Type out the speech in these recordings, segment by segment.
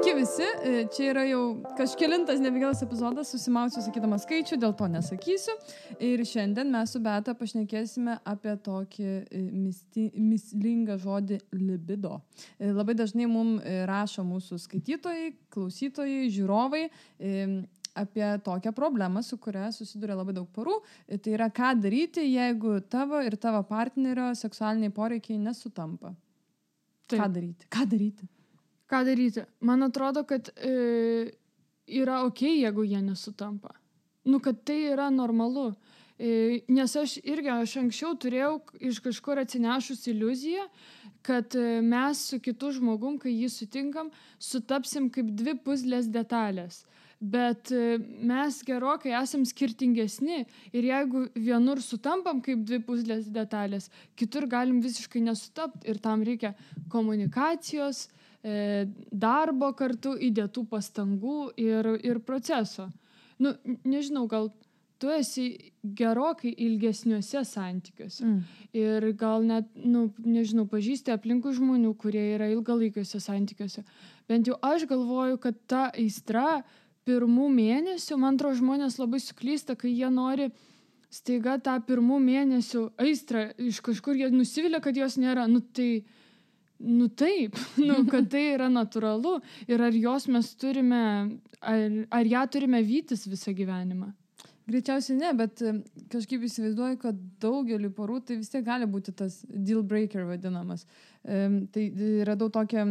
Sveiki visi, čia yra jau kažkelintas nebegelas epizodas, susimausiu sakydama skaičių, dėl to nesakysiu. Ir šiandien mes su Beata pašnekėsime apie tokį mįslingą žodį libido. Labai dažnai mums rašo mūsų skaitytojai, klausytojai, žiūrovai apie tokią problemą, su kuria susiduria labai daug porų. Tai yra, ką daryti, jeigu tavo ir tavo partnerio seksualiniai poreikiai nesutampa. Taip. Ką daryti? Ką daryti? Man atrodo, kad yra okei, jeigu jie nesutampa. Kad tai yra normalu. Nes aš anksčiau turėjau iš kažkur atsinešus iliuziją, kad mes su kitu žmogum, kai jį sutinkam, sutapsim kaip dvi puzlės detalės. Bet mes gerokai esam skirtingesni ir jeigu vienur sutampam kaip dvi puzlės detalės, kitur galim visiškai nesutapti ir tam reikia komunikacijos, darbo kartu, įdėtų pastangų ir proceso. Nežinau, gal tu esi gerokai ilgesniuose santykiuose. Ir gal net, pažįsti aplinkų žmonių, kurie yra ilgalaikiuose santykiuose. Bent jau aš galvoju, kad ta aistra pirmų mėnesių, man atrodo, žmonės labai suklysta, kai jie nori staiga tą pirmų mėnesių aistrą iš kažkur jie nusivilia, kad jos nėra. Taip, kad tai yra natūralu ir ar jos mes turime, ar ją turime vytis visą gyvenimą? Greičiausiai ne, bet kažkaip įsivaizduoju, kad daugeliu porų tai vis tiek gali būti tas deal breaker vadinamas. Tai radau tokią,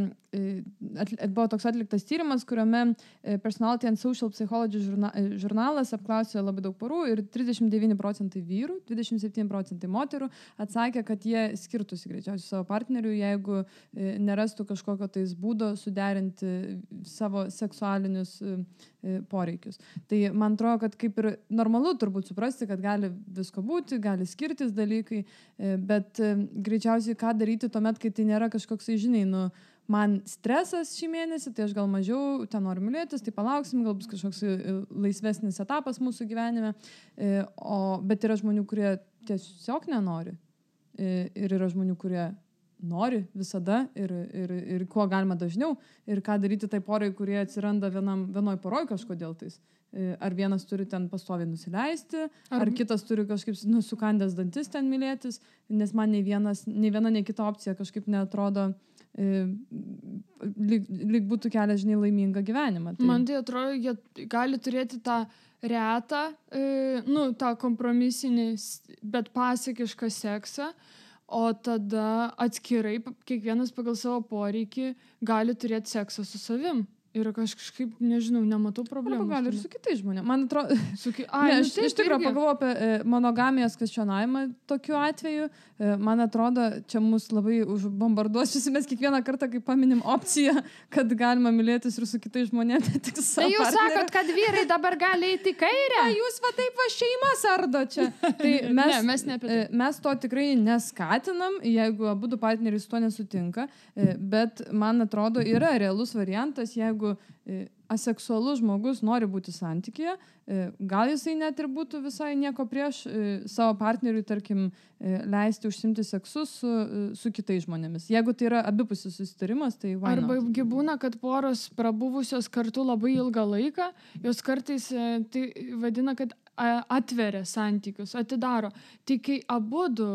buvo toks atliktas tyrimas, kuriame Personality and Social Psychology žurnalas apklausė labai daug porų ir 39% vyrų, 27% moterų atsakė, kad jie skirtųsi greičiausiai savo partnerių, jeigu nerastų kažkokio tais būdo suderinti savo seksualinius poreikius. Tai man atrodo, kad kaip ir normalu turbūt suprasti, kad gali visko būti, gali skirtis dalykai, bet greičiausiai ką daryti tuomet, kai tai nėra kažkoks, man stresas šį mėnesį, tai aš gal mažiau ten noriu mylėtis, tai palauksim, gal bus kažkoks laisvesnis etapas mūsų gyvenime, bet yra žmonių, kurie tiesiog nenori ir yra žmonių, kurie nori visada ir kuo galima dažniau ir ką daryti tai porai, kurie atsiranda vienoj poroj kažkodėl tais. Ar vienas turi ten pastoviai nusileisti, ar kitas turi kažkaip sukandęs dantis ten mylėtis, nes man nei viena, nei kita opcija kažkaip neatrodo lyg būtų kelias, laimingą gyvenimą. Tai... Man tai atrodo, jie gali turėti tą retą, tą kompromisinį, bet pasakišką seksą, o tada atskirai, kiekvienas pagal savo poreikį gali turėti seksą su savim. Ir kažkaip, nematau problemų. Gali ir su kitais žmonėmis. Man atrodo... Iš tikrųjų pagalvoju apie monogamijos kvestionavimą tokiu atveju. Man atrodo, čia mus labai užbombarduos. Mes kiekvieną kartą, kai paminim opciją, kad galima mylėtis ir su kitais žmonėmis, tik savo partneriu. Tai jūs sakot, kad vyrai dabar gali eiti į kairę? Jūs taip šeimas ardo čia. Tai mes to tikrai neskatinam, jeigu abudu partneriai su to nesutinka. Bet man atrodo, yra realus variantas, jeigu aseksualus žmogus nori būti santykyje, gal jisai net ir būtų visai nieko prieš savo partneriui, tarkim, leisti užsimti seksu su kitais žmonėmis. Jeigu tai yra abipusis susitarimas, tai why not? Arba būna, kad poros prabuvusios kartu labai ilgą laiką, jos kartais tai vadina, kad atveria santykius, atidaro. Tai kai abudu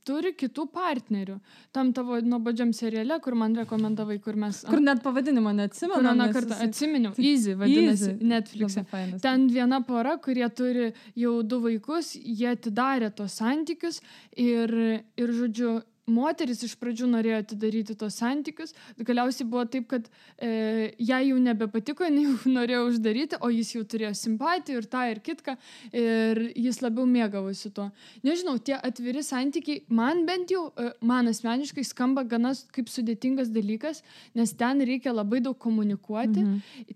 turi kitų partnerių, tam tavo nuobodžiam seriale, kur man rekomendavai, kur net pavadinimą neatsimenu. Kur vieną kartą atsiminiau. Easy vadinasi Netflix'e. Ten viena pora, kurie turi jau 2 vaikus, jie atidarė tos santykius ir žodžiu, moteris iš pradžių norėjo atidaryti tos santykius, galiausiai buvo taip, kad jai jau nebepatiko, jau norėjo uždaryti, o jis jau turėjo simpatijų ir tą ir kitką ir jis labiau mėgavosi tuo. Nežinau, tie atviri santykiai, man bent jau, man asmeniškai skamba gana kaip sudėtingas dalykas, nes ten reikia labai daug komunikuoti,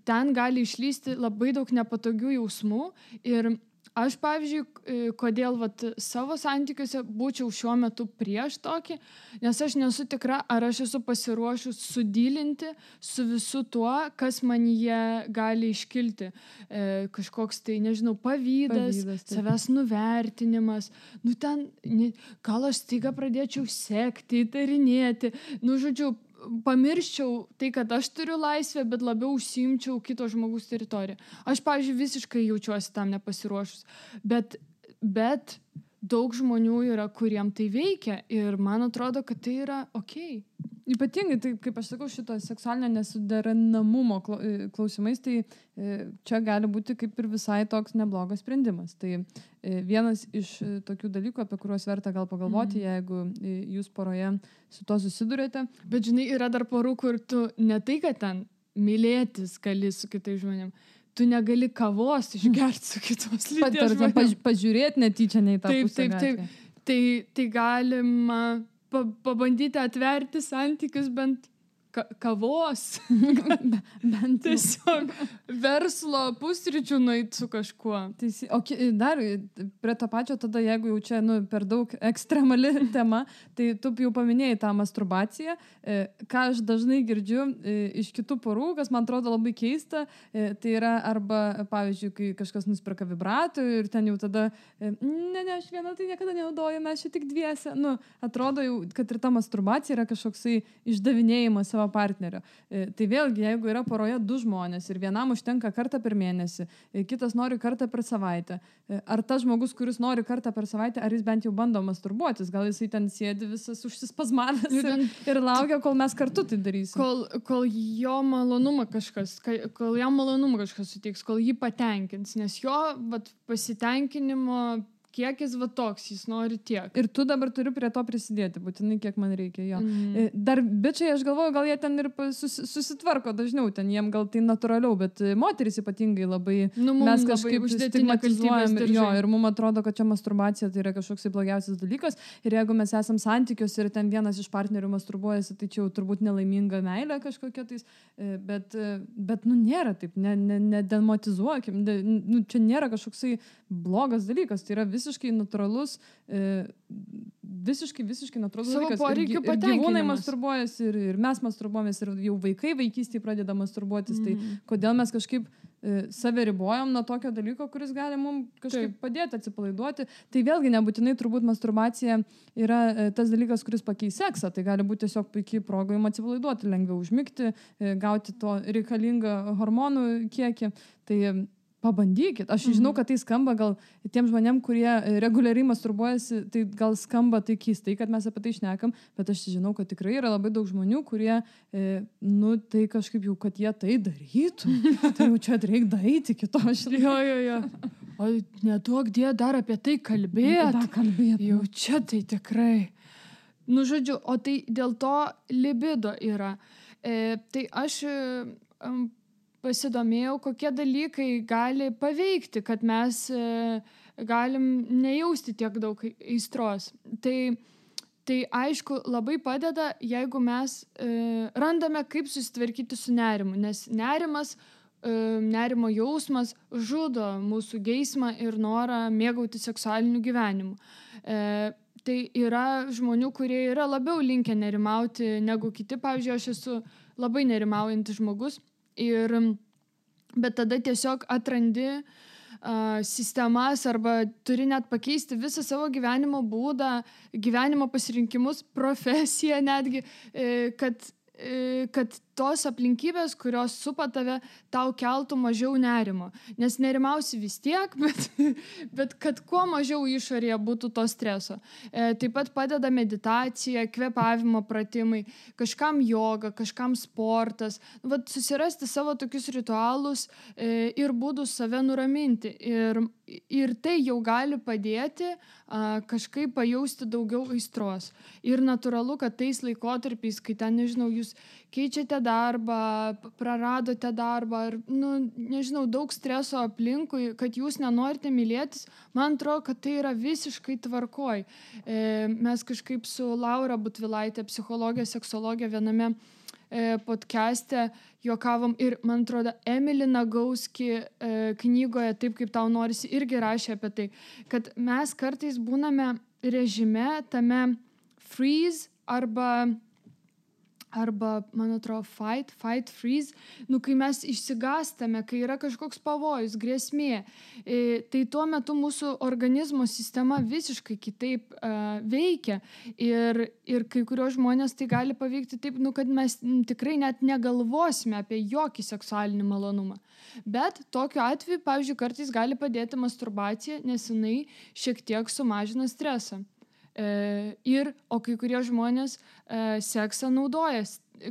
ten gali išlysti labai daug nepatogių jausmų ir aš, pavyzdžiui, kodėl savo santykiuose būčiau šiuo metu prieš tokį, nes aš nesu tikra, ar aš esu pasiruošus sudylinti su visu tuo, kas man jie gali iškilti. Kažkoks tai, pavydas, savęs nuvertinimas. Gal aš staiga pradėčiau sekti, įtarinėti. Žodžiu, pamirščiau tai, kad aš turiu laisvę, bet labiau užsiimčiau kito žmogus teritoriją. Aš, pavyzdžiui, visiškai jaučiuosi tam nepasiruošus. Bet daug žmonių yra, kuriem tai veikia ir man atrodo, kad tai yra okei. Ypatingai, tai kaip aš sakau, šito seksualinio nesuderinamumo klausimais, tai čia gali būti kaip ir visai toks neblogas sprendimas. Tai vienas iš tokių dalykų, apie kuriuos verta gal pagalvoti, jeigu jūs poroje su to susidurėte. Bet žinai, yra dar porų, kur tu ne tai, kad ten mylėtis gali su kitais žmonėm, tu negali kavos išgerti su kitos lyties žmonėm. Pažiūrėti netyčia nei tą pusę. Taip. Tai galima pabandyti atverti santykius bent kavos. Bent tiesiog verslo pusryčių nueit su kažkuo. O dar prie to pačio tada, jeigu jau čia per daug ekstremali tema, tai tu jau paminėjai tą masturbaciją. Ką aš dažnai girdžiu iš kitų porų, kas man atrodo labai keista, tai yra arba, pavyzdžiui, kai kažkas nusipirka vibratorių ir ten jau tada ne, aš viena tai niekada nenaudoju, mes čia tik dviese. Atrodo jau, kad ir ta masturbacija yra kažkoksai išdavinėjimas savo partnerio. Tai vėlgi, jeigu yra poroje 2 žmonės ir vienam užtenka kartą per mėnesį, kitas nori kartą per savaitę, ar tas žmogus, kuris nori kartą per savaitę, ar jis bent jau bando masturbuotis, gal jisai ten sėdi visas užsispazmavęs ir laukia, kol mes kartu tai darysim. Kol jam malonumą kažkas suteiks, kol jį patenkins, nes jo pasitenkinimo kiekis toks, jis nori tiek. Ir tu dabar turi prie to prisidėti, būtinai kiek man reikia jo. Dar bičiai, aš galvoju, gal jie ten ir susitvarko dažniau, ten jiem gal tai natūraliau, bet moteris ypatingai labai mes kažkaip stigmatizuojam ir mums atrodo, kad čia masturbacija tai yra kažkoks blogiausias dalykas ir jeigu mes esam santykiuose ir ten vienas iš partnerių masturbuojasi, tai čia jau turbūt nelaiminga meilė kažkokia tais, bet nėra taip, nedematizuokim, čia nėra kažkoksai blogas dalykas, tai yra visiškai natūralus, visiškai natūralus dalykas. Savo poreikių patenkinimas. Ir gyvūnai masturbuojasi, ir mes masturbuojamės, ir jau vaikai vaikystėje pradeda masturbuotis. Tai kodėl mes kažkaip save ribojam nuo tokio dalyko, kuris gali mums kažkaip padėti atsipalaiduoti. Tai vėlgi nebūtinai turbūt masturbacija yra tas dalykas, kuris pakeis seksą. Tai gali būti tiesiog puikiai proga jums atsipalaiduoti, lengviau užmigti, gauti to reikalingą hormonų kiekį. Tai pabandykit. Aš žinau, kad tai skamba gal tiem žmonėm, kurie reguliariai masturbuojasi, tai gal skamba tai keistai, kad mes apie tai šnekam, bet aš žinau, kad tikrai yra labai daug žmonių, kurie, tai kažkaip jau, kad jie tai darytų. Tai jau čia reikia daryti kito. Jo. O neduok die dar apie tai kalbėti. Jau čia tai tikrai. Žodžiu, o tai dėl to libido yra. Tai aš pasidomėjau, kokie dalykai gali paveikti, kad mes galim nejausti tiek daug aistros. Tai aišku, labai padeda, jeigu mes randame, kaip susitvarkyti su nerimu, nes nerimo jausmas žudo mūsų geismą ir norą mėgauti seksualiniu gyvenimu. Tai yra žmonių, kurie yra labiau linkę nerimauti negu kiti. Pavyzdžiui, aš esu labai nerimaujantis žmogus. Bet tada tiesiog atrandi sistemas arba turi net pakeisti visą savo gyvenimo būdą, gyvenimo pasirinkimus, profesiją netgi, kad tos aplinkybės, kurios supa tave, tau keltų mažiau nerimo. Nes nerimausi vis tiek, bet kad kuo mažiau išorėje būtų to streso. Taip pat padeda meditacija, kvėpavimo pratimai, kažkam joga, kažkam sportas. Susirasti savo tokius ritualus ir būdus save nuraminti. Ir tai jau gali padėti kažkaip pajausti daugiau aistros. Ir natūralu, kad tais laikotarpiais, kai ten, nežinau, jūs keičiate darbą, praradote darbą ir, nežinau, daug streso aplinkui, kad jūs nenorite mylėtis, man atrodo, kad tai yra visiškai tvarkoj. Mes kažkaip su Laura Butvilaitė, psichologė, seksologė, viename podcast'e juokavom ir, man atrodo, Emily Nagauski knygoje Taip, kaip tau norisi, irgi rašė apie tai, kad mes kartais būname režime tame freeze arba arba, man atrodo, fight, freeze, kai mes išsigąstame, kai yra kažkoks pavojus, grėsmė, tai tuo metu mūsų organizmo sistema visiškai kitaip veikia ir kai kurios žmonės tai gali paveikti taip, kad mes tikrai net negalvosime apie jokį seksualinį malonumą. Bet tokiu atveju, pavyzdžiui, kartais gali padėti masturbacija, nes jinai šiek tiek sumažina stresą. O kai kurie žmonės seksą naudoja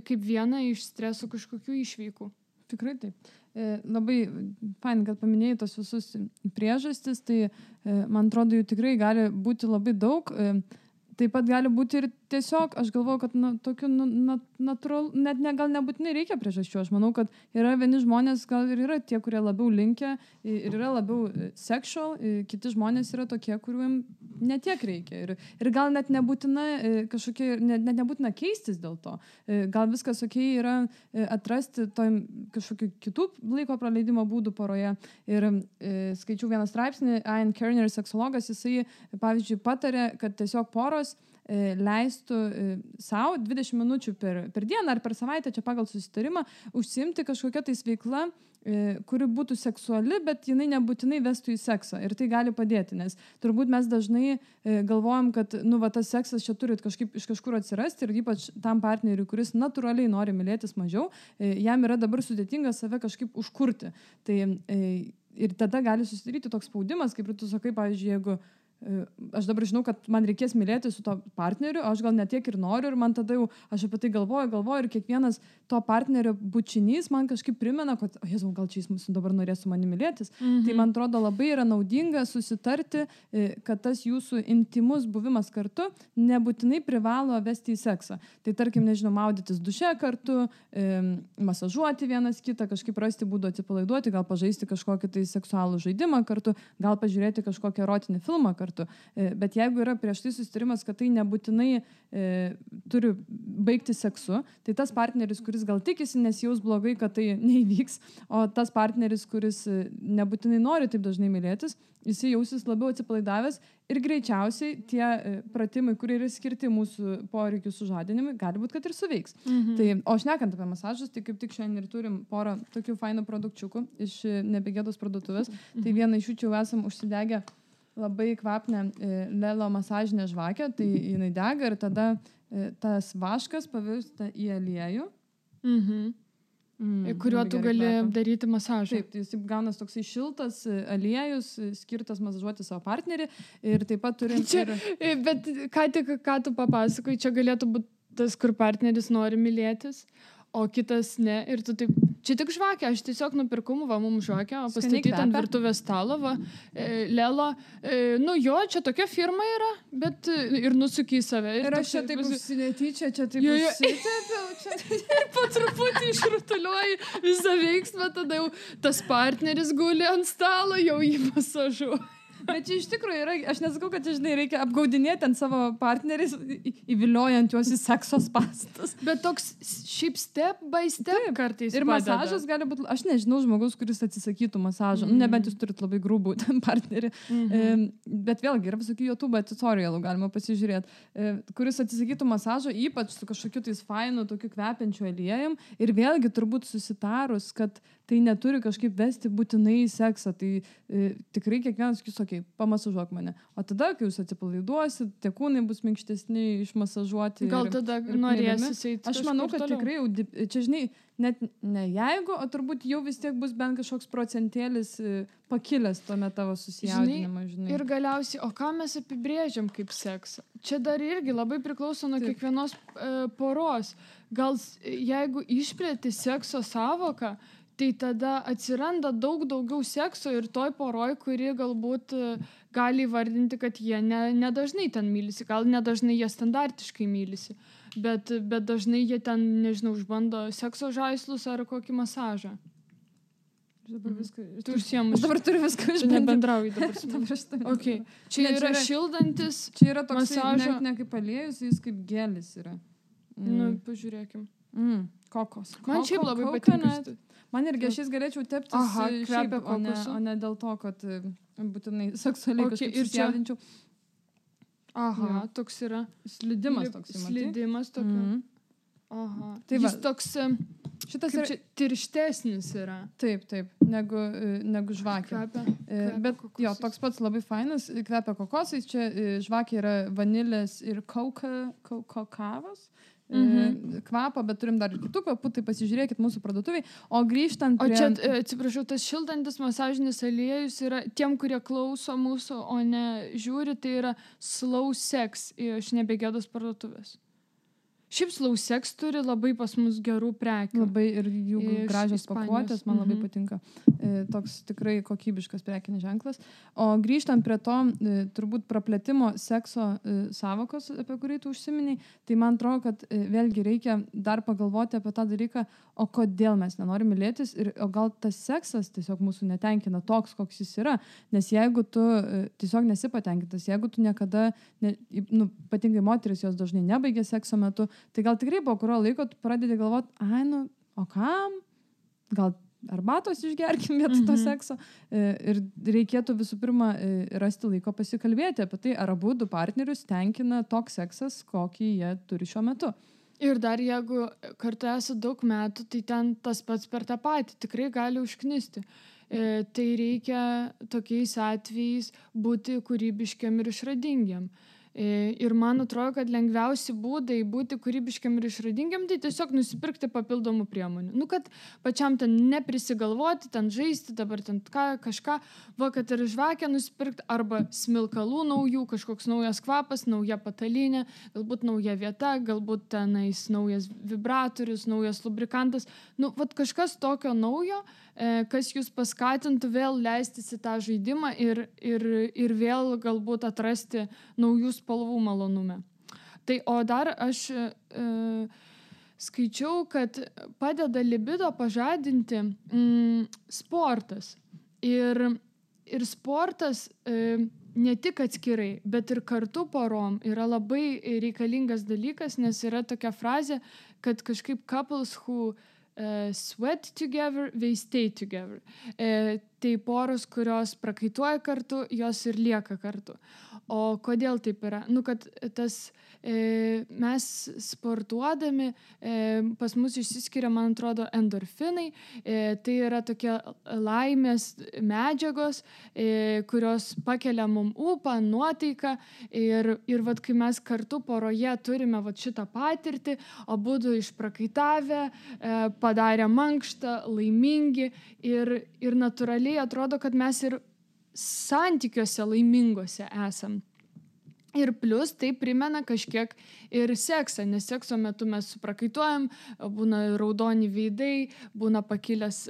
kaip vieną iš streso kažkokių išveikų. Tikrai taip. Labai fain, kad paminėjai tos visus priežastis, tai man atrodo, jų tikrai gali būti labai daug. Taip pat gali būti ir tiesiog, aš galvoju, kad tokiu natūralu, net gal nebūtinai reikia priežasčių. Aš manau, kad yra vieni žmonės, gal ir yra tie, kurie labiau linkę ir yra labiau sexual, kiti žmonės yra tokie, kuriuom netiek reikia. Ir gal net nebūtina kažkokie, net nebūtina keistis dėl to. Gal viskas yra atrasti kažkokių kitų laiko praleidimo būdų poroje. Ir skaičiau vieną straipsnį, Ian Kerner, seksologas, jisai, pavyzdžiui, patarė, kad tiesiog poros leistų savo 20 minučių per dieną ar per savaitę, čia pagal susitarimą, užsiimti kažkokią tais veiklą, kuri būtų seksuali, bet jinai nebūtinai vestų į seksą. Ir tai gali padėti, nes turbūt mes dažnai galvojam, kad tas seksas čia turi kažkaip iš kažkur atsirasti ir ypač tam partneriui, kuris natūraliai nori mylėtis mažiau, jam yra dabar sudėtinga save kažkaip užkurti. Tai, ir tada gali susidaryti toks spaudimas, kaip ir tu sakai, pavyzdžiui, jeigu aš dabar žinau, kad man reikės mylėti su to partneriu, aš gal netiek ir noriu ir man tada jau aš apie tai galvoju ir kiekvienas to partnerio bučinys man kažkaip primena, kad Jėzau, gal čia jis dabar norės su manimi mylėtis. Tai man atrodo labai yra naudinga susitarti, kad tas jūsų intimus buvimas kartu nebūtinai privalo vesti į seksą. Tai tarkim, nežinau, maudytis duše kartu, masažuoti vienas kitą, kažkaip rasti būdų atsipalaiduoti, gal pažaisti kažkokį tai seksualų žaidimą kartu, gal pažiūrėti kažkokį erotinį filmą kartu. Bet jeigu yra prieš tai susitarimas, kad tai nebūtinai turi baigti seksu, tai tas partneris, kuris gal tikisi, nesijaus blogai, kad tai neįvyks, o tas partneris, kuris nebūtinai nori taip dažnai mylėtis, jis jausis labiau atsipalaidavęs ir greičiausiai tie pratimai, kurie yra skirti mūsų poreikių sužadinimui, gali būti, kad ir suveiks. Tai, o šnekant apie masažus, tai kaip tik šiandien ir turim porą tokių fainų produkčiukų iš Nebegėdos parduotuvės. Tai vieną iš jų čia jau esam užsidegę labai kvapnę Lelo masažinę žvakę, tai jinai dega ir tada tas vaškas pavirsta į aliejų. Kuriuo tu gali daryti masažą. Taip, tai jis gaunas toksai šiltas aliejus, skirtas masažuoti savo partnerį ir taip pat turim... Bet ką tu papasakai, čia galėtų būti tas, kur partneris nori mylėtis, o kitas ne. Ir tu taip, čia tik žvakė, aš tiesiog nupirkau mums žvakę, o pastatyti ant virtuvės stalo, Lelo. Čia tokia firma yra, bet ir nusuki į save. Ir aš čia taip užsinetyčia, čia taip užsitepiau. Ir po truputį išrutuliuoji visą veiksmą, tada jau tas partneris guli ant stalo, jau jį masažuoja. Bet čia iš tikrųjų yra, aš nesakau, kad žinai, reikia apgaudinėti ant savo partneris, įviliojant juos į sekso spąstus. Bet toks šiaip step by step kartais ir padeda. Masažas gali būti, aš nežinau žmogus, kuris atsisakytų masažą, nebent jūs turit labai grubų partnerį. Bet vėlgi yra visokių YouTube tutorialų, galima pasižiūrėti, kuris atsisakytų masažo, ypač su kažkokiu tais fainu, tokiu kvepiančiu aliejum. Ir vėlgi turbūt susitarus, kad tai neturi kažkaip vesti būtinai į seksą. Tai tikrai kiekvienas sakys, okei, pamasažuok mane. O tada, kai jūs atsipalaiduosit, tie kūnai bus minkštesni, išmasažuoti. Gal tada norėsis eiti. Aš manau, kad tikrai jau, čia žinai, net ne jeigu, o turbūt jau vis tiek bus bent kažkoks procentėlis pakilęs tuomet tavo susijaudinimą, žinai. Ir galiausiai, o ką mes apibrėžiam kaip seksą? Čia dar irgi labai priklauso nuo kiekvienos poros. Gal jeigu išplėti sekso savoką, tai tada atsiranda daug daugiau sekso ir toj poroj, kuri galbūt gali įvardinti, kad jie nedažnai ten mylisi, gal nedažnai jie standartiškai mylisi, bet dažnai jie ten, nežinau, išbando sekso žaislus ar kokį masažą. Aš dabar turiu viską išbandyti. Nebendrauju dabar. Okay. Čia yra šildantis masažo. Čia yra toks ne kaip aliejus, jis kaip gelis yra. Pažiūrėkim. Kokos. Man šiaip labai patinka. Man irgi aš jais galėčiau teptis šiaip, o ne dėl to, kad būtinai seksualiai kažkaip susijaudinčiau. Toks yra. Slidimas toks. Slidimas tokia. Aha. Tai Jis va, toks šitas kaip čia tirštesnis yra. Taip, negu žvakė. Kvepia Bet kokosais. jo, toks pats labai fainas, kvepia kokosais, čia žvakė yra vanilės ir kokavos kvapą, bet turim dar ir kitų kvapų, tai pasižiūrėkit mūsų parduotuviai. O grįžtant O prie... čia, atsiprašau, tas šildantis masažinis aliejus yra tiem, kurie klauso mūsų, o ne žiūri, tai yra Slow Sex iš Nebegėdos parduotuvės. Šiaip Slow Sex turi labai pas mus gerų prekių. Labai ir jų Iš gražios Ispanijos. pakuotės, man labai patinka. Toks tikrai kokybiškas prekinis ženklas. O grįžtant prie to turbūt praplėtimo sekso savokos, apie kurį tu užsiminiai, tai man atrodo, kad vėlgi reikia dar pagalvoti apie tą dalyką, o kodėl mes nenorim mylėtis ir o gal tas seksas tiesiog mūsų netenkina toks, koks jis yra. Nes jeigu tu tiesiog nesi patenkintas, jeigu tu niekada, patingai moteris jos dažnai nebaigia sekso metu, tai gal tikrai po kurio laiko tu pradedi galvoti, o kam? Gal arbatos išgerkim vietoj to sekso. Ir reikėtų visų pirma rasti laiko pasikalbėti apie tai, ar abu du partnerius tenkina toks seksas, kokį jie turi šiuo metu. Ir dar jeigu kartu esi daug metų, tai ten tas pats per tą patį tikrai gali užknisti. Tai reikia tokiais atvejais būti kūrybiškiam ir išradingiam. Ir man atrodo, kad lengviausi būdai būti kūrybiškiam ir išradingiam, tai tiesiog nusipirkti papildomų priemonių. Kad pačiam ten neprisigalvoti, ten žaisti, dabar ten kažką, kad ir žvakę nusipirkti, arba smilkalų naujų, kažkoks naujas kvapas, nauja patalinė, galbūt nauja vieta, galbūt tenais naujas vibratorius, naujas lubrikantas. Kažkas tokio naujo, kas jūs paskatintų vėl leistis į tą žaidimą ir vėl galbūt atrasti naujų spalvų malonume. Tai o dar aš skaičiau, kad padeda libido pažadinti sportas. Ir sportas ne tik atskirai, bet ir kartu porom yra labai reikalingas dalykas, nes yra tokia frazė, kad kažkaip couples who sweat together, they stay together. Tai poros, kurios prakaituoja kartu, jos ir lieka kartu. O kodėl taip yra? Kad mes sportuodami, pas mus išsiskiria, man atrodo, endorfinai. Tai yra tokie laimės medžiagos, kurios pakelia mum ūpą, nuotaiką. Ir kai mes kartu poroje turime šitą patirtį, abudu išprakaitavę, padarę mankštą, laimingi ir natūraliai atrodo, kad mes ir santykiuose laimingose esam. Ir plus tai primena kažkiek ir seksą, nes sekso metu mes suprakaituojam, būna raudoni veidai, būna pakilęs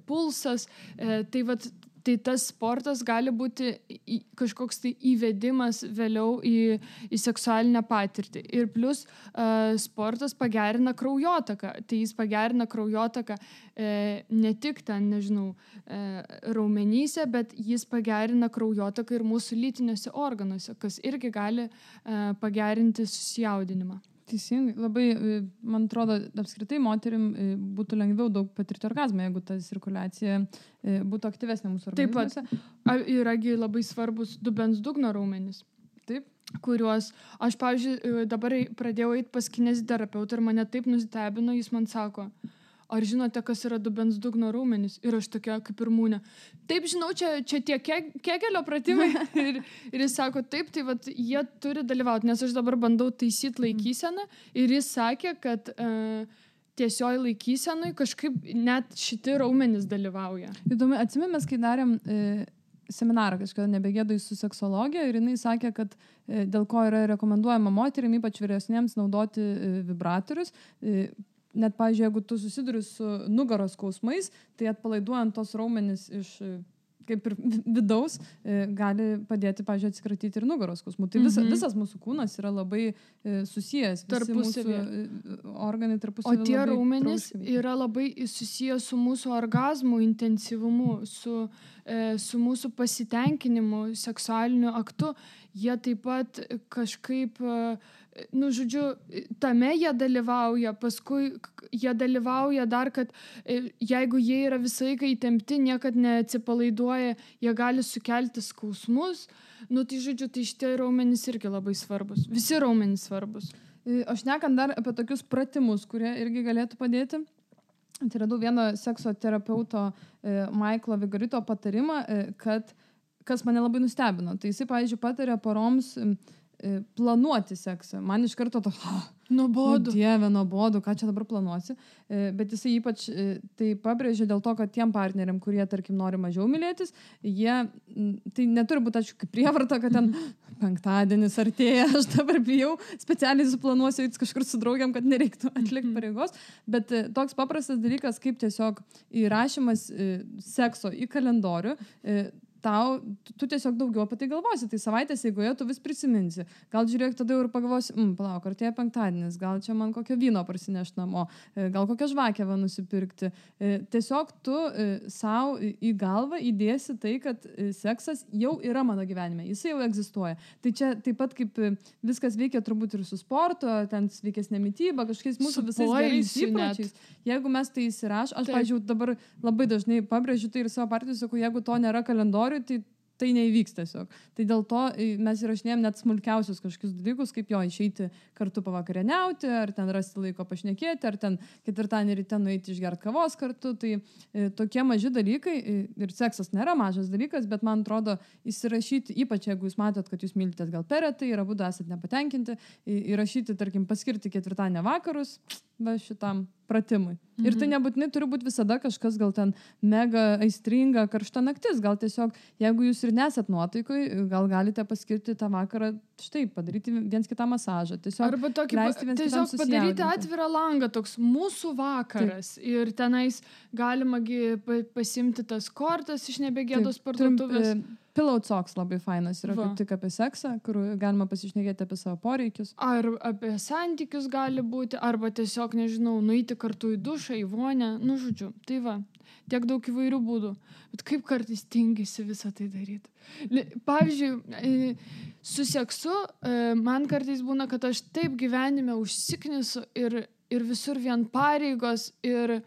pulsas. Tai tas sportas gali būti kažkoks tai įvedimas vėliau į seksualinę patirtį. Ir plus sportas pagerina kraujotaką. Tai jis pagerina kraujotaką ne tik ten, raumenyse, bet jis pagerina kraujotaką ir mūsų lytiniuose organuose, kas irgi gali pagerinti susijaudinimą. Teisingai, labai, man atrodo, apskritai moterim būtų lengviau daug patirti orgazmą, jeigu ta cirkuliacija būtų aktyvesnė mūsų organizmuose. Taip pat yragi labai svarbus dubens dugno raumenys. Taip. Kuriuos aš, pavyzdžiui, dabar pradėjau eiti pas kineziterapeutą ir mane taip nustebino, jis man sako, ar žinote, kas yra dubens dugno raumenys? Ir aš tokia kaip ir mūnė. Taip, žinau, čia tie kegelio pratimai. ir jis sako, taip, tai jie turi dalyvauti, nes aš dabar bandau taisyti laikyseną ir jis sakė, kad tiesioj laikysenui kažkaip net šiti raumenys dalyvauja. Įdomu, atsimenu, mes kai darėm seminarą kažkada Nebegėdoj su seksologija ir jinai sakė, kad dėl ko yra rekomenduojama moterim, ypač vyresniems, naudoti vibratorius. Net, pavyzdžiui, jeigu tu susiduri su nugaros skausmais, tai atpalaiduojant tos raumenis iš kaip ir vidaus, gali padėti, pavyzdžiui, atsikratyti ir nugaros skausmų. Tai visas mūsų kūnas yra labai susijęs. Tarpusavy. Organai tarpusavy. O tie raumenys yra labai susijęs su mūsų orgazmų intensyvumu, su mūsų pasitenkinimu, seksualiniu aktu. Jie taip pat kažkaip, tame jie dalyvauja, paskui jie dalyvauja dar, kad jeigu jie yra visą laiką įtempti, niekad neatsipalaiduoja, jie gali sukelti skausmus. Tai šitie raumenys irgi labai svarbus. Visi raumenys svarbus. Aš nekant dar apie tokius pratimus, kurie irgi galėtų padėti. Tai radau vieno sekso terapeuto Michaelo Vigorito patarimą, kad kas mane labai nustebino. Tai jisai, pavyzdžiui, patarė poroms planuoti seksą. Man iš karto nuobodu. Dieve, nuobodu, ką čia dabar planuosi. Bet jisai ypač tai pabrėžė dėl to, kad tiem partneriam, kurie, tarkim, nori mažiau mylėtis, tai neturi būti, aišku, kaip prievarta, kad ten penktadienis artėja, aš dabar bijau, specialiai suplanuosiu kažkur su draugiam, kad nereiktų atlikti pareigos. Bet toks paprastas dalykas, kaip tiesiog įrašymas sekso į kalendorių, tu tiesiog daugiau apie tai galvosi. Tai savaitės eigoje tu vis prisiminsi. Gal žiūrėk, tada jau ir pagalvosi, palauk, artėja penktadienis, gal čia man kokio vyno parsineš namo, gal kokią žvakę nusipirkti. Tiesiog tu savo į galvą įdėsi tai, kad seksas jau yra mano gyvenime, jisai jau egzistuoja. Tai čia taip pat kaip viskas veikia turbūt ir su sportu, ten sveikesnė mityba, kažkokiais mūsų visais gerais įpročiais. Jeigu mes tai įsiraš, aš, pavyzdžiui, dabar labai dažnai pabrėžiu tai ir savo partijai, sakau, jeigu to nėra kalendorių, tai neįvyks tiesiog. Tai dėl to mes įrašinėjom net smulkiausius kažkokius dalykus, kaip jo išeiti kartu pavakarieniauti, ar ten rasti laiko pašnekėti, ar ten ketvirtadienį ryte nueiti išgerti kavos kartu. Tai tokie maži dalykai, ir seksas nėra mažas dalykas, bet man atrodo įsirašyti, ypač jeigu jūs matot, kad jūs mylitės gal per retai ir abudu esat nepatenkinti, įrašyti, tarkim, paskirti ketvirtadienio vakarus šitam pratimui. Ir tai nebūtinai turi būti visada kažkas gal ten mega aistringa, karšta naktis. Gal tiesiog, jeigu jūs ir nesat nuotaikoj, gal galite paskirti tą vakarą, štai, padaryti viens kitą masažą. Tiesiog arba tokį, tiesiog padaryti atvirą langą, toks mūsų vakaras. Taip. Ir tenais galima pasimti tas kortas iš nebegėdos parduotuvės. Pillow Talks labai fainas yra kaip tik apie seksą, kur galima pasišnekėti apie savo poreikius. Ar apie santykius gali būti, arba tiesiog, nežinau, nueiti kartu į dušą, į vonę, žodžiu. Tai tiek daug įvairių būdų. Bet kaip kartais tingisi visą tai daryti. Pavyzdžiui, su seksu man kartais būna, kad aš taip gyvenime užsiknisu ir visur vien pareigos ir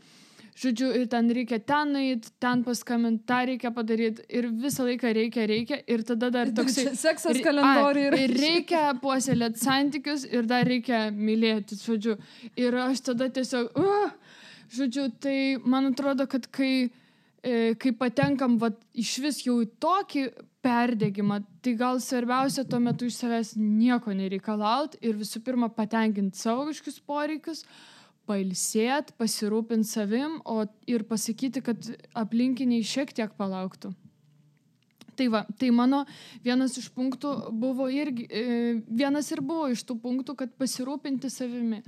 žodžiu, ir ten reikia ten nueiti, ten paskambinti, tą reikia padaryti ir visą laiką reikia ir tada dar toksai seksas kalendoriui ir reikia puoselėti santykius ir dar reikia mylėti, žodžiu. Ir aš tada tiesiog, žodžiu, tai man atrodo, kad kai patenkam iš vis jau į tokį perdegimą, tai gal svarbiausia tuo metu iš savęs nieko nereikalauti ir visų pirma patenkinti savo kažkokius poreikius, pailsėti, pasirūpinti savim ir pasakyti, kad aplinkiniai šiek tiek palauktų. Tai mano vienas iš punktų buvo vienas ir buvo iš tų punktų, kad pasirūpinti savimi.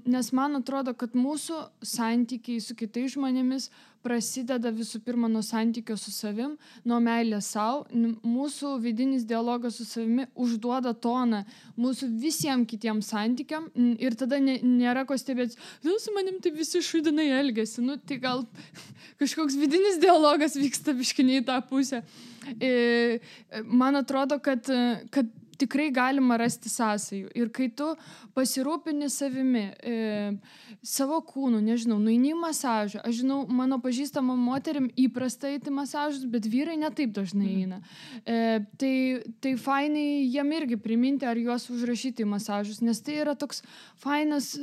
Nes man atrodo, kad mūsų santykiai su kitais žmonėmis prasideda visų pirma nuo santykio su savim, nuo meilės savo. Mūsų vidinis dialogas su savimi užduoda toną mūsų visiems kitiems santykiam ir tada nėra ko stebėti. Su manim taip visi šudinai elgiasi. Tai gal kažkoks vidinis dialogas vyksta biškiniai į tą pusę. Man atrodo, kad tikrai galima rasti sąsajų. Ir kai tu pasirūpini savimi, savo kūnu, nežinau, nueini į masažą. Aš žinau, mano pažįstama moterim įprasta eiti masažus, bet vyrai netaip dažnai eina. Tai fainai jiem irgi priminti ar juos užrašyti į masažus, nes tai yra toks fainas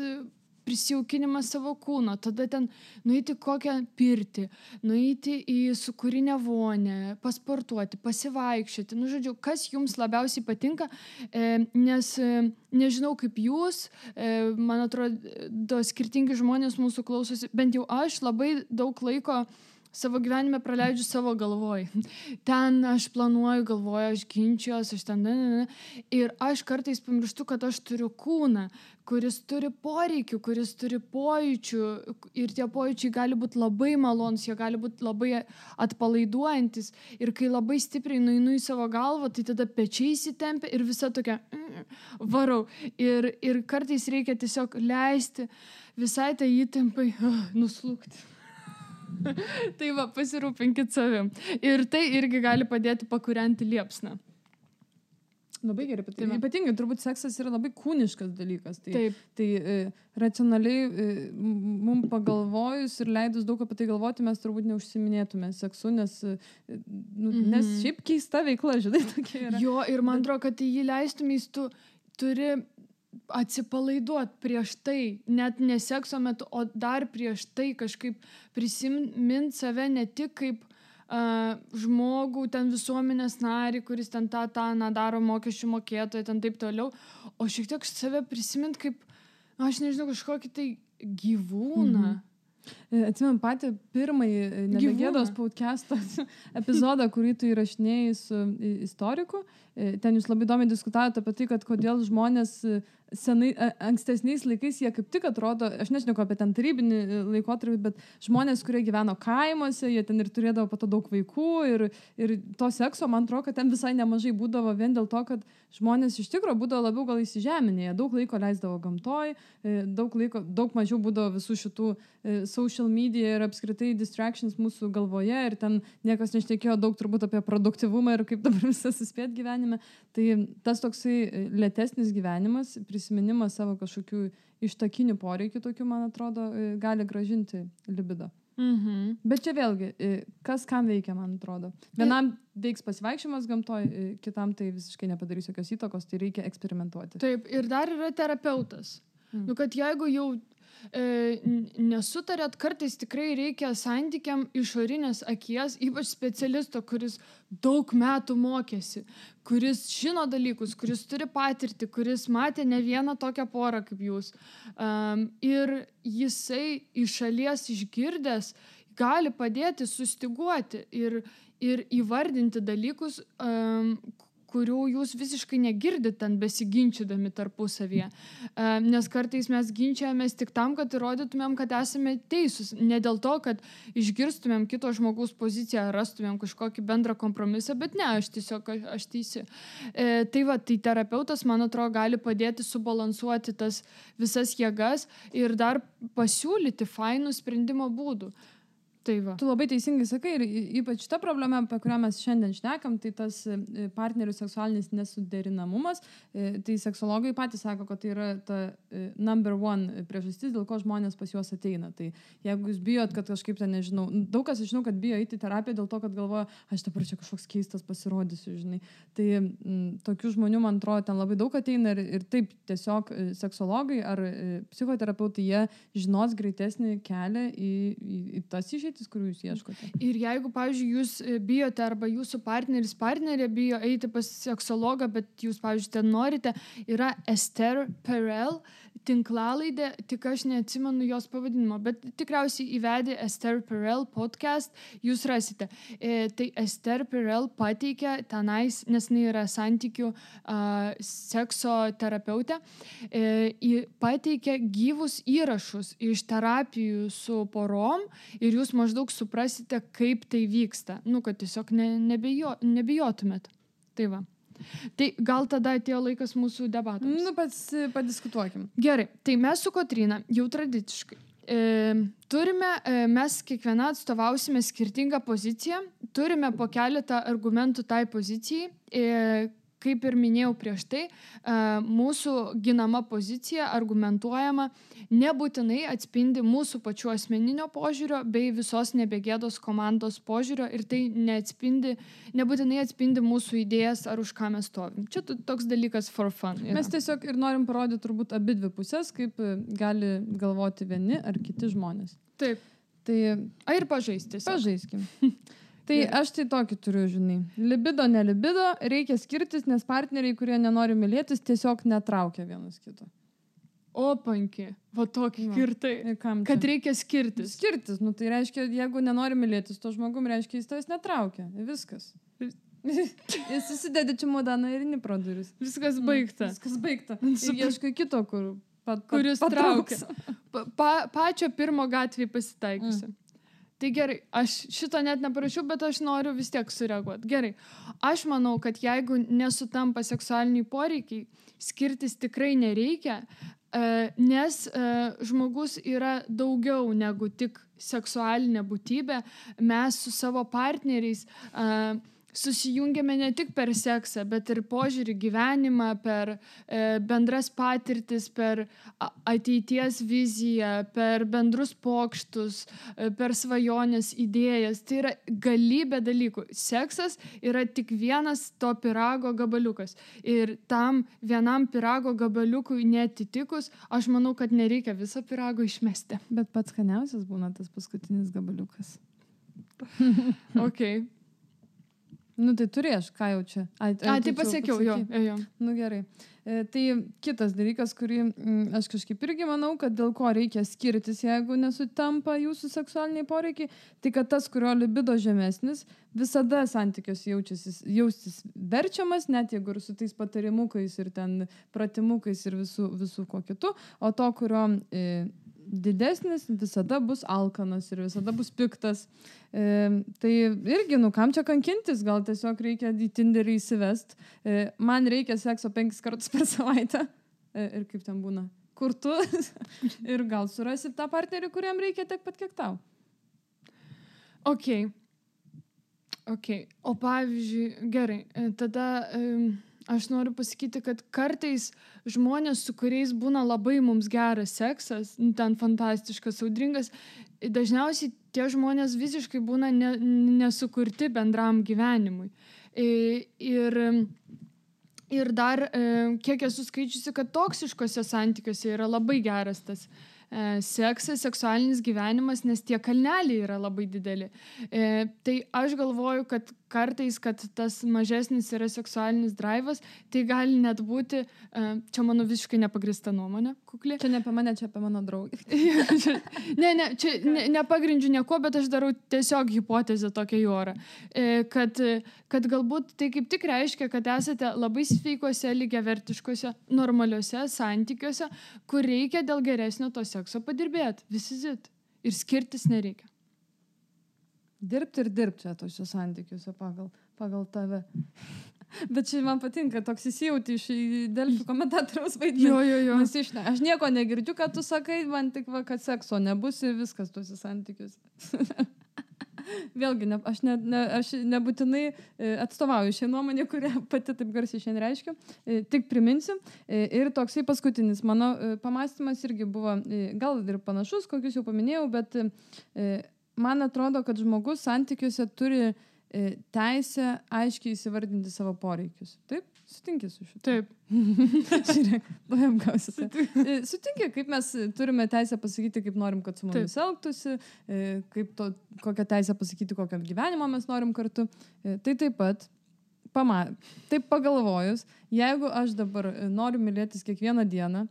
prisijaukinimas savo kūno, tada ten nueiti kokią pirtį, nueiti į sūkurinę vonę, pasportuoti, pasivaikščioti. Žodžiu, kas jums labiausiai patinka, nes nežinau kaip jūs, man atrodo, skirtingi žmonės mūsų klausosi, bent jau aš labai daug laiko savo gyvenime praleidžiu savo galvoj. Ten aš planuoju, galvoju, aš ginčiuos, aš ten... Ir aš kartais pamirštu, kad aš turiu kūną, kuris turi poreikių, kuris turi pojūčių. Ir tie pojūčiai gali būti labai malonus, jie gali būti labai atpalaiduojantis. Ir kai labai stipriai nueinu į savo galvą, tai tada pečiai įsitempia ir visa tokia varau. Ir kartais reikia tiesiog leisti visai tai įtempai nuslūgti. Tai pasirūpinkit savim. Ir tai irgi gali padėti pakūrenti liepsną. Labai gerai, ypatingai turbūt seksas yra labai kūniškas dalykas. Tai racionaliai mums pagalvojus ir leidus daug apie tai galvoti, mes turbūt neužsiminėtume seksu, nes šiaip keista veikla, žinai, tokia yra. Jo, ir man atrodo, kad jį leistumės, tu turi atsipalaiduot prieš tai, net ne sekso metu, o dar prieš tai kažkaip prisimint save ne tik kaip žmogų, ten visuomenės narį, kuris ten tą daro mokesčių mokėtoją, ten taip toliau, o šiek tiek save prisimint kaip, aš nežinau, kažkokį tai gyvūną. Atsimenu patį pirmąjį Nebegėdos podcast'o epizodą, kurį tu įrašinėjai su istoriku. Ten jūs labai įdomiai diskutavote apie tai, kad kodėl žmonės ankstesniais laikais jie kaip tik atrodo, aš nežinau apie ten tarybinį laikotarpį, bet žmonės, kurie gyveno kaimuose, jie ten ir turėdavo po to daug vaikų ir to sekso, man atrodo, kad ten visai nemažai būdavo vien dėl to, kad žmonės iš tikrųjų būdavo labiau gal įsižeminėje, daug laiko leisdavo gamtoj, daug mažiau būdavo visų šitų social media ir apskritai distractions mūsų galvoje ir ten niekas nešnekėjo daug turbūt apie produktyvumą ir kaip dabar visas suspėt gyvenime. Tai tas toksai lėtesnis gyvenimas, prisiminimas savo kažkokių ištakinių poreikių tokių, man atrodo, gali gražinti libido. Bet čia vėlgi, kas kam veikia, man atrodo. Vienam veiks pasivaikščiojimas gamtoj, kitam tai visiškai nepadarys jokios įtakos, tai reikia eksperimentuoti. Taip, ir dar yra terapeutas. Nu, kad jeigu jau nesutarėt, kartais tikrai reikia santykiam išorinės akies, ypač specialisto, kuris daug metų mokėsi, kuris žino dalykus, kuris turi patirtį, kuris matė ne vieną tokią porą kaip jūs. Ir jisai iš šalies išgirdęs gali padėti sustiguoti ir įvardinti dalykus, kurių jūs visiškai negirdit ten besiginčydami tarpusavyje. Nes kartais mes ginčiamės tik tam, kad įrodytumėm, kad esame teisūs. Ne dėl to, kad išgirstumėm kito žmogaus poziciją, rastumėm kažkokį bendrą kompromisą, bet ne, aš teisi. Tai terapeutas, man atrodo, gali padėti subalansuoti tas visas jėgas ir dar pasiūlyti fainų sprendimo būdų. Tai va. Tu labai teisingai sakai ir ypač ta problema, apie kurią mes šiandien šnekam, tai tas partnerių seksualinis nesuderinamumas. Tai seksologai patys sako, kad tai yra ta number one priežastis, dėl ko žmonės pas juos ateina. Tai jeigu jūs bijot, kad kažkaip ten, nežinau, daug kas žinau, kad bijo eiti į terapiją dėl to, kad galvoja, aš dabar čia kažkoks keistas pasirodysiu, žinai. Tai tokių žmonių, man atrodo, ten labai daug ateina ir taip tiesiog seksologai ar psichoterapeutai, jie žinos greitesnį kelią į tas išeitis, kurių jūs ieškote. Ir jeigu, pavyzdžiui, jūs bijote arba jūsų partnerė bijo eiti pas seksologą, bet jūs, pavyzdžiui, ten norite, yra Esther Perel tinklalaidė, tik aš neatsimenu jos pavadinimo, bet tikriausiai įvedė Esther Perel podcast, jūs rasite. Tai Esther Perel pateikia tenais, nes jinai yra santykių sekso terapeutė, pateikia gyvus įrašus iš terapijų su porom ir jūs maždaug suprasite, kaip tai vyksta. Nu, kad tiesiog nebijotumėt. Tai va. Tai gal tada atėjo laikas mūsų debatams. Nu, padiskutuokim. Gerai, tai mes su Kotryna jau tradiciškai mes kiekviena atstovausime skirtingą poziciją, turime po keletą argumentų tai pozicijai. Kaip ir minėjau prieš tai, mūsų ginama pozicija, argumentuojama, nebūtinai atspindi mūsų pačių asmeninio požiūrio bei visos Nebegėdos komandos požiūrio ir tai nebūtinai atspindi mūsų idėjas ar už ką mes stovim. Čia toks dalykas for fun. Yra. Mes tiesiog ir norim parodyti turbūt abidvi pusės, kaip gali galvoti vieni ar kiti žmonės. Taip. Tai ir pažaisti. Pažaiskim. Tai aš tai tokį turiu, žinai. Libido, nelibido, reikia skirtis, nes partneriai, kurie nenori mylėtis, tiesiog netraukia vienas kito. O, panki, va tokį kirtai. Kad reikia skirtis. Skirtis, nu tai reiškia, jeigu nenori mylėtis, to žmogum reiškia, jis tavęs netraukia. Viskas. Jis susidedi čemodaną ir eini pro duris. Viskas baigta. Viskas baigta. Ir ieškai kito, kuris traukia. Pačio pirmo gatvėje pasitaikysiu. Tai gerai, aš šito net neparašiau, bet aš noriu vis tiek sureaguoti. Gerai, aš manau, kad jeigu nesutampa seksualiniai poreikiai, skirtis tikrai nereikia, nes žmogus yra daugiau negu tik seksualinė būtybė. Mes su savo partneriais susijungiame ne tik per seksą, bet ir požiūrį gyvenimą, per bendras patirtis, per ateities viziją, per bendrus pokštus, per svajonės idėjas. Tai yra galybė dalykų. Seksas yra tik vienas to pyrago gabaliukas. Ir tam vienam pyrago gabaliukui netitikus, aš manau, kad nereikia viso pyrago išmesti. Bet pats skaniausias būna tas paskutinis gabaliukas. Okay. Nu tai turėš, ką jau čia. Tai pasakiau, jo. Nu gerai. Tai kitas dalykas, kurį aš kažkaip irgi manau, kad dėl ko reikia skirtis, jeigu nesutampa jūsų seksualiniai poreikiai, tai kad tas, kurio libido žemesnis, visada santykiuose jaustis verčiamas, net jeigu ir su tais patarimukais ir ten pratimukais ir visų ko kitų, o to, kurio didesnis visada bus alkanas ir visada bus piktas. Tai irgi, kam čia kankintis, gal tiesiog reikia į Tinderį įsivest. Man reikia sekso 5 kartus per savaitę. Ir kaip ten būna? Kur tu? Ir gal surasi tą partnerį, kuriam reikia tiek pat, kiek tau. Okay. O pavyzdžiui, gerai, tada aš noriu pasakyti, kad kartais žmonės, su kuriais būna labai mums geras seksas, ten fantastiškas, audringas, dažniausiai tie žmonės visiškai būna nesukurti bendram gyvenimui. Ir dar, kiek esu skaičiusi, kad toksiškose santykiuose yra labai geras tas seksas, seksualinis gyvenimas, nes tie kalneliai yra labai dideli. Tai aš galvoju, kad kartais, kad tas mažesnis yra seksualinis drivas, tai gali net būti, čia mano visiškai nepagrįsta nuomonė, kukli. Čia ne apie mane, čia apie mano draugį. Čia nepagrindžiu nieko, bet aš darau tiesiog hipotezę tokią į orą. Kad galbūt tai kaip tik reiškia, kad esate labai sveikose, lygiavertiškose, normaliuose santykiuose, kur reikia dėl geresnio to sekso padirbėti. Visit. Ir skirtis nereikia. Dirbti čia tose santykiuose pagal tave. Bet čia man patinka, toks įsijauti iš Delfi komentatoriaus vaidmenį. Jo. Aš nieko negirdžiu, kad tu sakai, man tik kad sekso nebus ir viskas tose santykiuose. Vėlgi, aš nebūtinai atstovauju šią nuomonę, kurią pati taip garsiai šiandien reiškiu. Tik priminsiu. Ir toksai paskutinis mano pamąstymas irgi buvo gal ir panašus, kokius jau paminėjau, bet man atrodo, kad žmogus santykiuose turi teisę aiškiai įsivardinti savo poreikius. Taip? Sutinki su šitu? Taip. Žiūrėk, apgausite. Sutinki, kaip mes turime teisę pasakyti, kaip norim, kad su mumis elgtųsi, kokią teisę pasakyti, kokią gyvenimą mes norim kartu. Tai taip pat, taip pagalvojus, jeigu aš dabar noriu mylėtis kiekvieną dieną,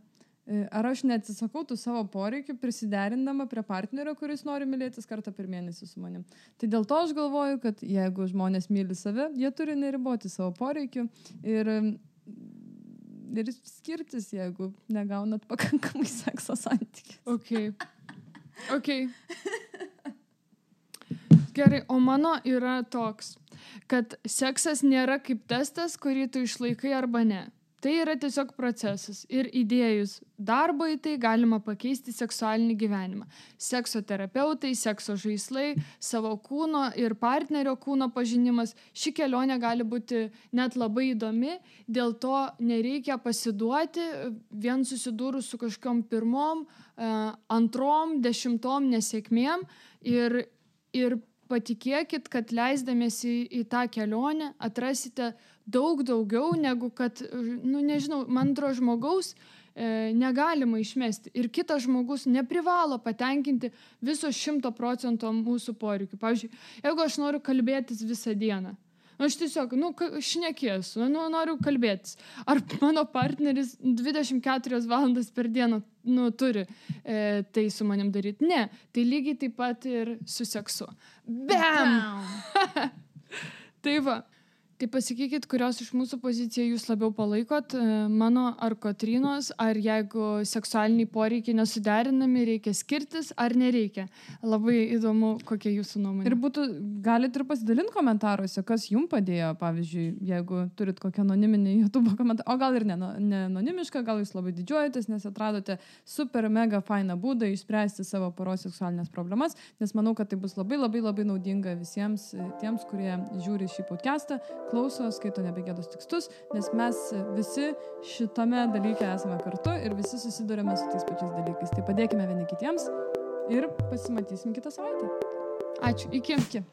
ar aš neatsisakau tų savo poreikių prisiderindama prie partnerio, kuris nori mylėtis kartą per mėnesį su manim. Tai dėl to aš galvoju, kad jeigu žmonės myli save, jie turi neriboti savo poreikių ir skirtis, jeigu negaunat pakankamai sekso santykių. Okay. Gerai, o mano yra toks, kad seksas nėra kaip testas, kurį tu išlaikai arba ne. Tai yra tiesiog procesas ir įdėjus darbo į tai galima pakeisti seksualinį gyvenimą. Sekso terapeutai, sekso žaislai, savo kūno ir partnerio kūno pažinimas. Ši kelionė gali būti net labai įdomi, dėl to nereikia pasiduoti vien susidūrus su kažkokiom pirmom, antrom, 10 nesėkmėm ir patikėkit, kad leisdamiesi į tą kelionę atrasite daug daugiau negu kad, nežinau, man atrodo žmogaus negalima išmesti. Ir kitas žmogus neprivalo patenkinti viso 100% mūsų poreikių. Pavyzdžiui, jeigu aš noriu kalbėtis visą dieną, aš tiesiog, šnekėsiu, noriu kalbėtis. Ar mano partneris 24 valandas per dieną turi tai su manim daryti? Ne, tai lygiai taip pat ir su seksu. Bam! Tai va. Tai pasakykit, kurios iš mūsų poziciją jūs labiau palaikot, mano ar Kotrynos, ar jeigu seksualiniai poreikiai nesuderinami, reikia skirtis ar nereikia. Labai įdomu, kokia jūsų nuomonė. Ir galite ir pasidalinti komentaruose, kas jums padėjo, pavyzdžiui, jeigu turit kokią anoniminį YouTube komentarą, o gal ir ne anonimišką, gal jūs labai didžiuojatės, nes atradote super mega fainą būdą išspręsti savo poros seksualinės problemas, nes manau, kad tai bus labai labai labai naudinga visiems tiems, kurie žiūri šį podcastą, klauso, skaito Nebegėdos tekstus, nes mes visi šitame dalyke esame kartu ir visi susidurėme su tais pačiais dalykais. Tai padėkime vieni kitiems ir pasimatysim kitą savaitę. Ačiū. Iki.